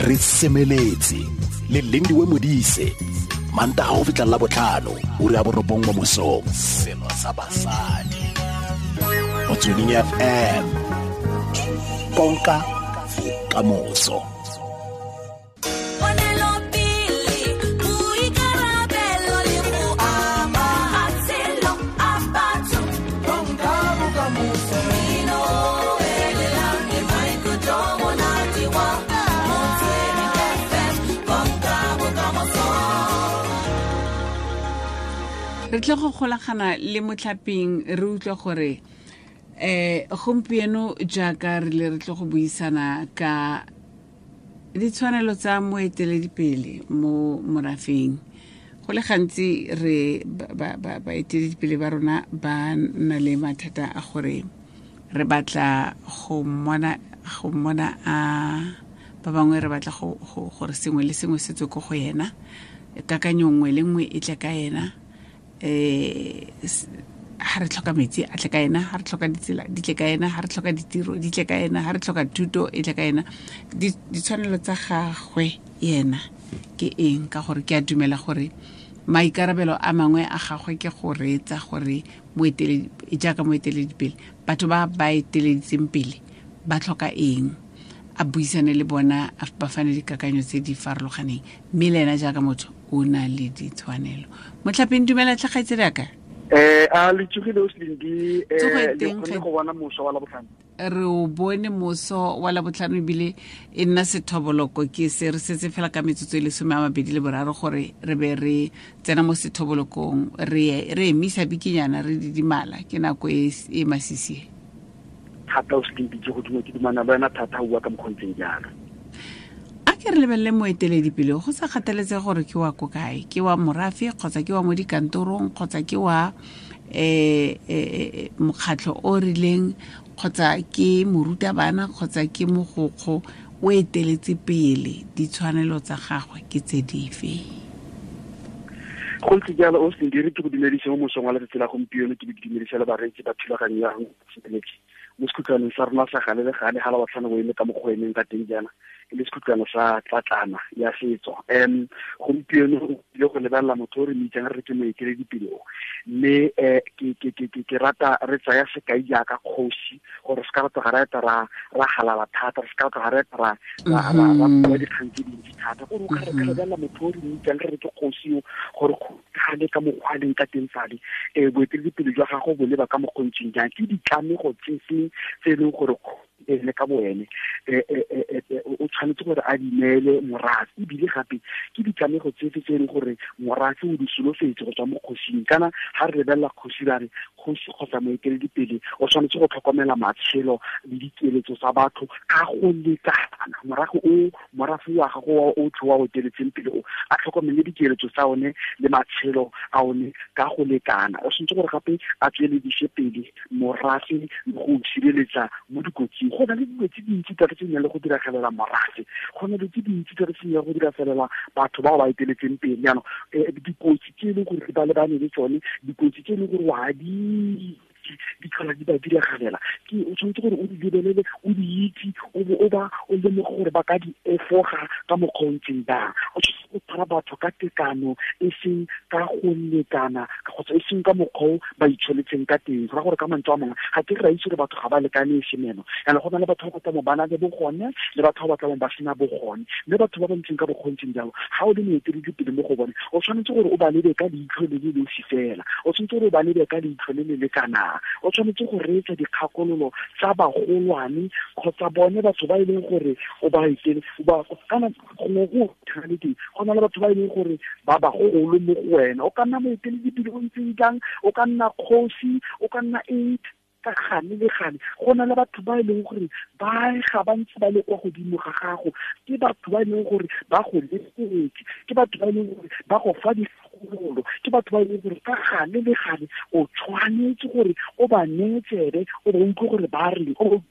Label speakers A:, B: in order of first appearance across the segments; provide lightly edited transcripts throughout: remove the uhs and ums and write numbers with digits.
A: Re semeletse le Lindiwe Modise, Mantaga go fitlha la botlhano, ura ya 9 mo mosong. Selo sa basadi. Motsweding FM. Konka bokamoso.
B: Re tle go golagana le motlhaping re utlwe gore gompieno jaaka re le re tle go buisana ka ditshwanelo tsa moeteledipele mo morafeng. Go le gantsi re baeteledipele ba rona ba na le mathata a gore re batla go mmona a ba bangwe re batla gore sengwe le sengwe se tswe ko go yena, kakanyo nngwe le nngwe e tle ka ena, ha re tlhoka metsi a tle ka ena, ha re tlhoka ditsela di tle ka ena, ha re tlhoka ditiro di tle ka ena, ha re tlhoka thuto e tle ka ena. Ditshwanelo tsa gagwe yena ke eng? Ka gore ke a dumela gore maikarabelo a mangwe a gagwe ke go reetsa gore jaaka moeteledipele batho ba ba eteleditseng pele ba tlhoka eng, a buisane le bona, ba fane dikakanyo tse di farologaneng, mme le ena jaaka motho o na le ditshwanelo. Motlhapeng, dumela tlhe kgaitsedi aka.
C: A le tsogile o Slindi, le kgonne go bona moso wa Labotlhano?
B: Re o bone moso wa Labotlhano, ebile e nna sethoboloko. Ke se re setse fela ka metsotso e le 23 gore re be re tsena mo sethobolokong, re emisa bikinyana, re didimala, ke nako e masisi.
C: Thata o Slindi, ke go duma ke dumana le wena thata, o bua ka mokgontseng jalo.
B: A ke re lebelele moeteledipele, go sa kgathaletse gore ke wa ko kae, ke wa morafe kgotsa ke wa mo dikantorong kgotsa ke wa mokgatlho o rileng kgotsa ke morutabana kgotsa ke mogokgo, o eteletse pele, ditshwanelo tsa gagwe ke tse dife?
C: Go ntse jalo o Slindi, re ke go dumedise mo mosong wa letsatsi la gompieno, ke be ke dumedise le bareetsi ba thulaganyo ya Semeletse mo sekhutlwaneng sa rona sa gale le gale, ga Labotlhano bo eme ka mokgwa o emeng ka teng jaana, e le sekhutlwana sa tlatlana ya setso. Gompieno o ile go lebelela motho o re mitsang re ke moeteledipele o, mme ke rata re tsaya sekai jaaka kgosi, gore se ka re tloga ra eta ra halala thata, re se ka tloga ra eta ra bua dikgang tse dintsi thata. Gore o ka re ka lebelela motho o re mitsang re ke kgosi o, gore gale ka mokgwa a leng ka teng fale, boeteledipele jwa gagwe bo leba ka mokgontseng jang, ke ditlamego tse feng tse e leng gore ene ka boene o tshwanetse gore a di neele morafe, ebile gape ke ditlamego tse fe tse e leng gore morafe o di solofetse go tswa mo kgosing. Kana ga re lebelela kgosi ra re kgosi kgotsa moeteledipele o tshwanetse go tlhokomela matshelo le dikeletso tsa batho ka go lekana. Morago o morafe wa gago o tlho wa o eteletseng pele o a tlhokomele dikeletso tsa one le matshelo a one ka go lekana. O tshwanetse gore gape a tsweledise pele morafe le go sireletsa mo dikotsing. Go na le dilo tse dintsi thata tse di nang le go diragalela morafe, go na le tse dintsi thata tse di nang le go diragalela batho bao ba eteletseng pele. Jaanong dikotsi tse e leng gore ba lebane le tsone, dikotsi tse e leng gore wa di tlhola di ba diragalela, ke o tshwanetse gore o di lebelele, o di itse, o bo o ba o lemoge gore ba ka di efoga ka mokgwa o ntseng jang. O tshwanetse go tshwara batho ka tekano, e seng ka go lekana kgotsa e seng ka mokgwa o ba itsholetseng ka teng. Go raya gore ka mantswe a mangwe ga ke re ra itse gore batho ga ba lekane e se meno, jaanong go na le batho ba ba tlamong ba na le bogone le batho ba ba tlamong ba sena bogone, mme batho ba ba ntseng ka bokgontseng jalo, ga o le moeteledipele mo go bone, o tshwanetse gore o ba lebe ka leitlho le le losi fela, o tshwanetse gore o ba lebe ka leitlho le le lekanang, o tshwanetse go reetsa dikgakololo tsa bagolwane kgotsa bone batho ba e leng gore o ba etele, ba kana gongwe go tshwanetse go na le batho ba e leng gore ba bagolo mo go wena. O ka nna moeteledipele o ntseng jang, o ka nna kgosi, o ka nna eng, ka gane le gane go na le batho ba e leng gore ba ga ba ntse ba le kwa godimo ga gago, ke batho ba e leng gore ba go lebeletse, ke batho ba e leng gore ba go fa dikgakololo, ke batho ba e leng gore ka gane le gane o tshwanetse gore o ba neye tsebe, o ba utlwe gore ba reng, o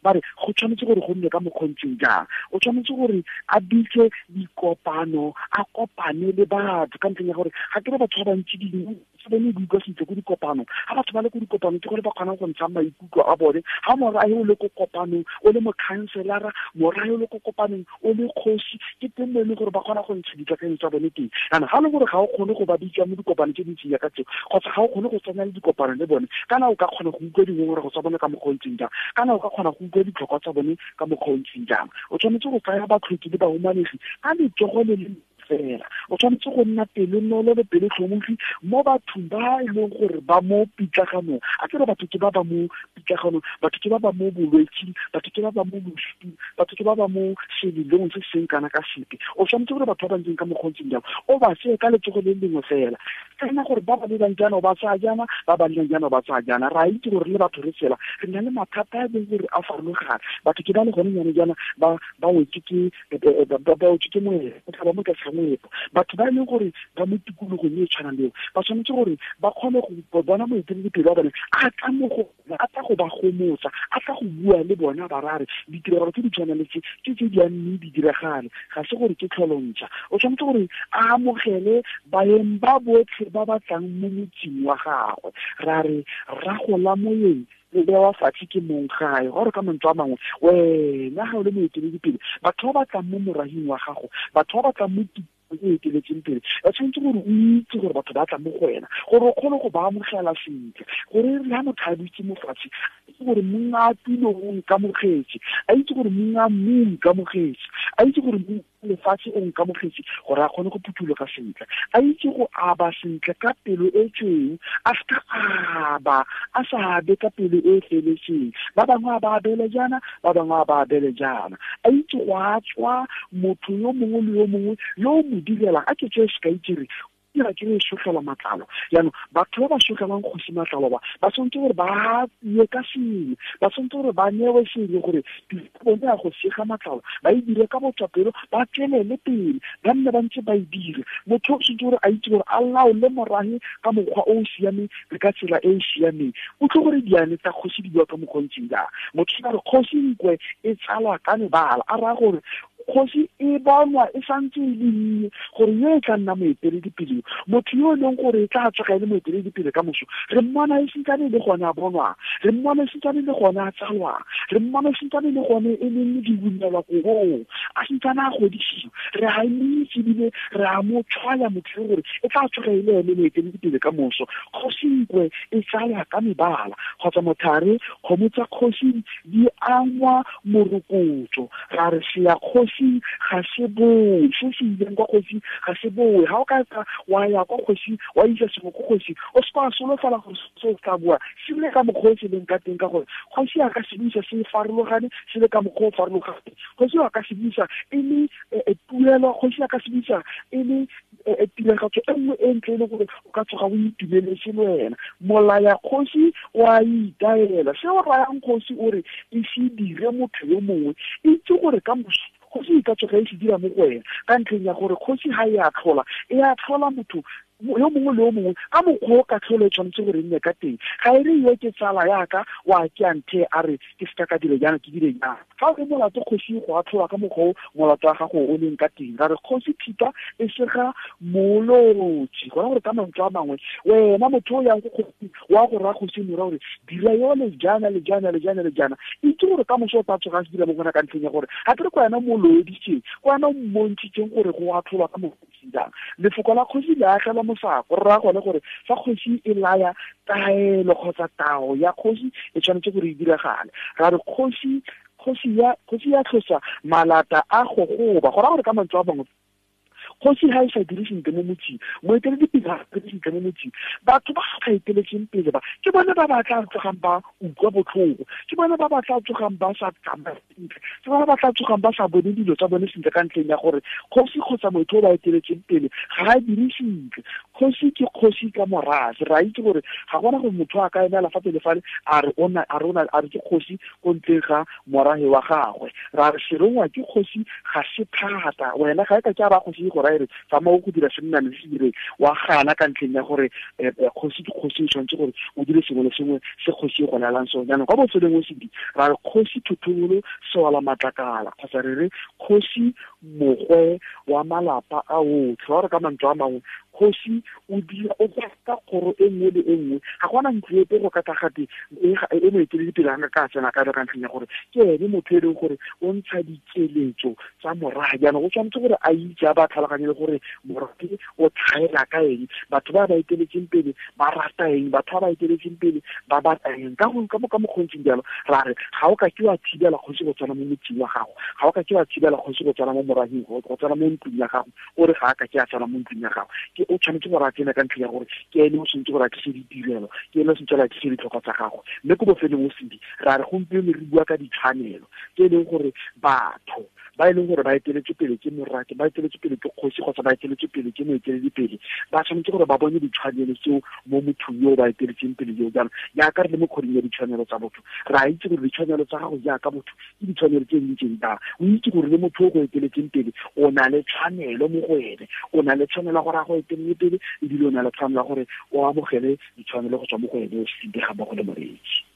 C: ba re go tshwanetse gore go nne ka mokgontseng jang. O tshwanetse gore a bitse dikopano, a kopane le batho ka ntlheng ya gore ga ke re batho ba bantsi dingwe se bone di utlwa sentle ko dikopanong. Ga batho ba le ko dikopanong ke gore ba kgonang go ntsha maikutlo a bone. Ga morae o le ko kopanong o le mokhanselara, morae o le ko kopanong o le kgosi, ke teng mo e leng gore ba kgona go ntsha dikakanyo tsa bone teng. Jaanong ga e le gore ga o kgone go ba bitsa mo dikopanong tse dintseng jaaka tseo, kgotsa ga o kgone go tsena le dikopano le bone, kana o ka kgona go utlwa dingongorego tsa bone ka mokgwa o ntseng jang, kana o ka kgona go utlwa ditlhokwa tsa bone ka mokgwa o ntseng jang. O tshwanetse go tsaya batlhoki le bahumanegi ka letsogo le le fela. O tshwanetse go nna pelonolo le pelotlhomogi mo bathong ba e leng gore ba mo pitlaganong. A ke re batho ke ba ba mo pitlaganong, batho ke ba ba mo bolwetsing, batho ke ba ba mo losung, batho ke ba ba mo selelong se seng kana ka sepe. O tshwanetse gore batho ba ba ntseng ka mokgwa o ntseng jang o ba tseye ka letsogo le lengwe fela, tsena gore ba ba lebang jaana o ba tsaya jaana, ba ba lebang jaana o ba tsaya jaana. Re a itse gore le batho re tsela re na le mathata a e leng gore a farologane. Batho ke ba le gone jaanong jaana ba wetse ke, ba wetse ke moepo, ba tla ba mo tlase ga moepo. Batho ba e leng gore ba mo tikologong e e tshwanang le eo, ba tshwanetse gore ba kgone go bona moeteledipele wa bone a tla mo go bona, a tla go ba gomotsa, a tla go bua le bona, ba ra re ditiragalo tse di tshwanang le tse ke tse di a mme di diragale, ga se gore ke tlholontšha. O tshwanetse gore a amogele baeng ba botlhe ba ba tlang mo motseng wa gagwe. Ra re ragola moyeng le bewa fatshe ke mong gae. Gore ka mantswe a mangwe, wena ga o le moeteledipele, batho ba ba tlang mo morahing wa gago, batho ba ba tlang mo o eteletseng pele, ba tshwanetse gore o itse gore batho ba tla mo go wena, gore o kgone go ba amogela sentle, gore le ha motho a dutse mo fatshe, a itse gore monga tulo o nkamogetse, a itse gore monga mmu o nkamogetse, a itse gore monga lefatshe o nkamogetse, gore a kgone go phuthuloga sentle, a itse go aba sentle ka pelo e tshweu, a seka aba, a sa abe ka pelo e feletseng. Ba bangwe a ba abele jaana, ba bangwe a ba abele jaana. A itse go a tswa motho yo mongwe le yo mongwe yo o mo direlang. A ke tseye sekai ke re, dira ke re sogela matlalo. Jaanong batho ba ba sogelang kgosi matlalo ba, ba tshwanetse gore ba ye ka sengwe, ba tshwanetse gore ba newe sengwe gore tiro ya bone ya go sega matlalo ba e dire ka botswapelo, ba tswelele pele, ba nne ba ntse ba e dire. Motho o tshwanetse gore a itse gore a laole morahe ka mokgwa o o siameng le ka tsela e e siameng. O tle gore diane tsa kgosi di bua ka mokgwa o ntseng jang. Motho a re kgosi nkwe e tsalwa ka mebala, a raya gore kgosi e bonwa e santse e le nnye gore yo e tla nna moeteledipele, motho yo e leng gore e tla tsoga e le moeteledipele ka moso, re mmona e santsane e le gone a bonwang, re mmona e santsane e le gone a tsalwang, re mmona e santsane e le gone e leng diunelwa korong, a santsane a godisiwa, re a mo itse ebile re a mo tshwaya motho yo gore e tla tsoga e le ene moeteledipele ka moso. Kgosi nkwe e tsalwa ka mebala, kgotsa mothare kgomo tsa kgosi di angwa morokotso. Ra re se ya kgosi ga se boe, se se ileng kwa kgosi ga se boe. Ga o ka tla wa ya kwa kgosi, wa isa sengwe ko kgosi, o se ka wa solofela gore se o tla boa se le ka mokgwa o se leng ka teng, ka gore kgosi a ka se buisa se farologane, se le ka mokgwa o farologane. Kgosi a ka se buisa e le tuelo, kgosi a ka se buisa e le tiragatso e nngwe e ntle e le gore o ka tsoga o itumeletse le wena. Molaya kgosi o a itaela, se o rayang kgosi o re e se dire motho yo mongwe, itse gore ka moso kgosi e ka tsoga e se dira mo go wena, ka ntlheng ya gore kgosi ga e a tlhola, e a tlhola motho yo mongwe le yo mongwe ka mokgwa o ka tlholo e tshwanetse gore e nne ka teng. Ga e re yo ke tsala yaka wa ke a nthe a re ke seka ka dire jaana, ke dire jaana. Fa o le molato kgosi go atlholwa ka mokgwa o molato wa gago o leng ka teng. Ra re kgosi thipa e sega molotsi, gona gore ka mantswe a mangwe wena motho o yang ko kgosi wa go raya kgosi mora gore dira yone jaana le jaana le jaana le jaana, itse gore ka moso o tla tsoga a se dira mo gona, ka ntlheng ya gore ga ke re ko wena mo loeditseng, ko wena o mmontshitseng gore go atlholwa ka mokgwa o jang. Lefoko la kgosi le agela mosako, re raya gone gore fa kgosi e laya taelo kgotsa tao ya kgosi e tshwanetse gore e diragale. Ra re kgosi ya tlhosa malata a gogoba, go raya gore ka mantswe a mangwe kgosi ha e sa dire sentle mo motseng, moeteledipele ha a dire sentle mo motseng, batho ba sa eteletseng pele ba ke bone ba ba tla tsogang ba utlwa botlhoko, ke bone ba ba tla tsogang ba sa tsamaya sentle, ke bone ba tla tsogang ba sa bone dilo tsa bone sentle, ka ntlheng ya gore kgosi kgotsa motho o ba eteletseng pele ga a dire sentle. Kgosi ke kgosi ka morafe, re a itse gore ga gona gore motho a ka emela fa pele fale a re o na, a re o na, a re ke kgosi ko ntleng ga morafe wa gagwe. Ra re serongwa ke kgosi ga se thata, wena ga e ka ke a ba kgosi go ra e re tsamaya o go dira sennane se se direng, wa gana ka ntlheng ya gore kgosi ke kgosi, o tshwanetse gore o dire sengwe le sengwe se kgosi e go laelang sone. Jaanong kwa bofelong o sedi ra re kgosi Thotobolo Sewala Matlakala, kgotsa re re kgosi mogwe wa malapa a otlhe. Wa re ka mantswe a mangwe, kgosi o dira o ka kgoro e nngwe le e nngwe, ga gona ntlo epe go ka tlagate e moeteledipele ga ka tsena ka ka ntlheng ya gore ke ene motho e leng gore o ntsha dikeletso tsa morafe. Jaanong o tshwanetse gore a itse, a ba tlhaloganye le gore morafe o tlhaela ka eng, batho ba ba eteletseng pele ba rata eng, batho ba ba eteletseng pele ba batla eng. Ka go ka mo ka mokgontseng jalo ra re ga o ka ke wa thibela kgosi go tsena mo motseng wa gago, ga o ka ke wa thibela kgosi go tsena mo moraheng, go tsena mo ntlong ya gago, o re ga a ka ke a tsena mo ntlong ya gago. Ke o tshwanetse gore a tsene ka ntlha ya gore ke ene o tshwanetse gore a tlise ditirelo, ke ene o tshwanetse gore a tlise ditlhokwa tsa gago. Mme ko bofelong o sedi ra re gompieno re bua ka ditshwanelo tse e leng gore batho ba e leng gore ba eteletse pele ke morake, ba eteletse pele ke kgosi, kgotsa ba eteletse pele ke moeteledipele, ba tshwanetse gore ba bone ditshwanelo tseo mo mothong yo ba eteletseng pele yo. Jaanong jaaka re le mo kgweding ya ditshwanelo tsa botho, re a itse gore ditshwanelo tsa gago jaaka motho ke ditshwanelo tse di ntseng jang. O itse gore le motho o go eteletseng pele o na le tshwanelo mo go ene, o na le tshwanelo ya gore a go etelele pele, ebile o na le tshwanelo ya gore o amogele ditshwanelo go tswa mo go ene o se ga mmogo le moreetsi.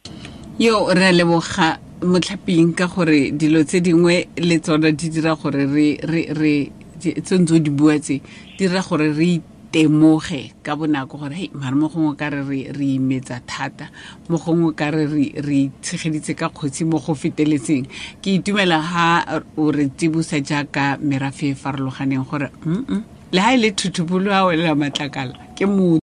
B: Yo re a leboga motlhaping ka gore dilo tse dingwe le tsona di dira gore re re re tse ntse o di bua tse di dira gore re itemoge ka bonako gore hei mare mo gongwe ka re re imetsa thata, mo gongwe ka re re tshegeditse ka kgotsi mo go feteletseng. Ke itumela ha o re tsibosa jaaka merafe e farologaneng gore le ha e le thuthubolo a welela matlakala ke motho.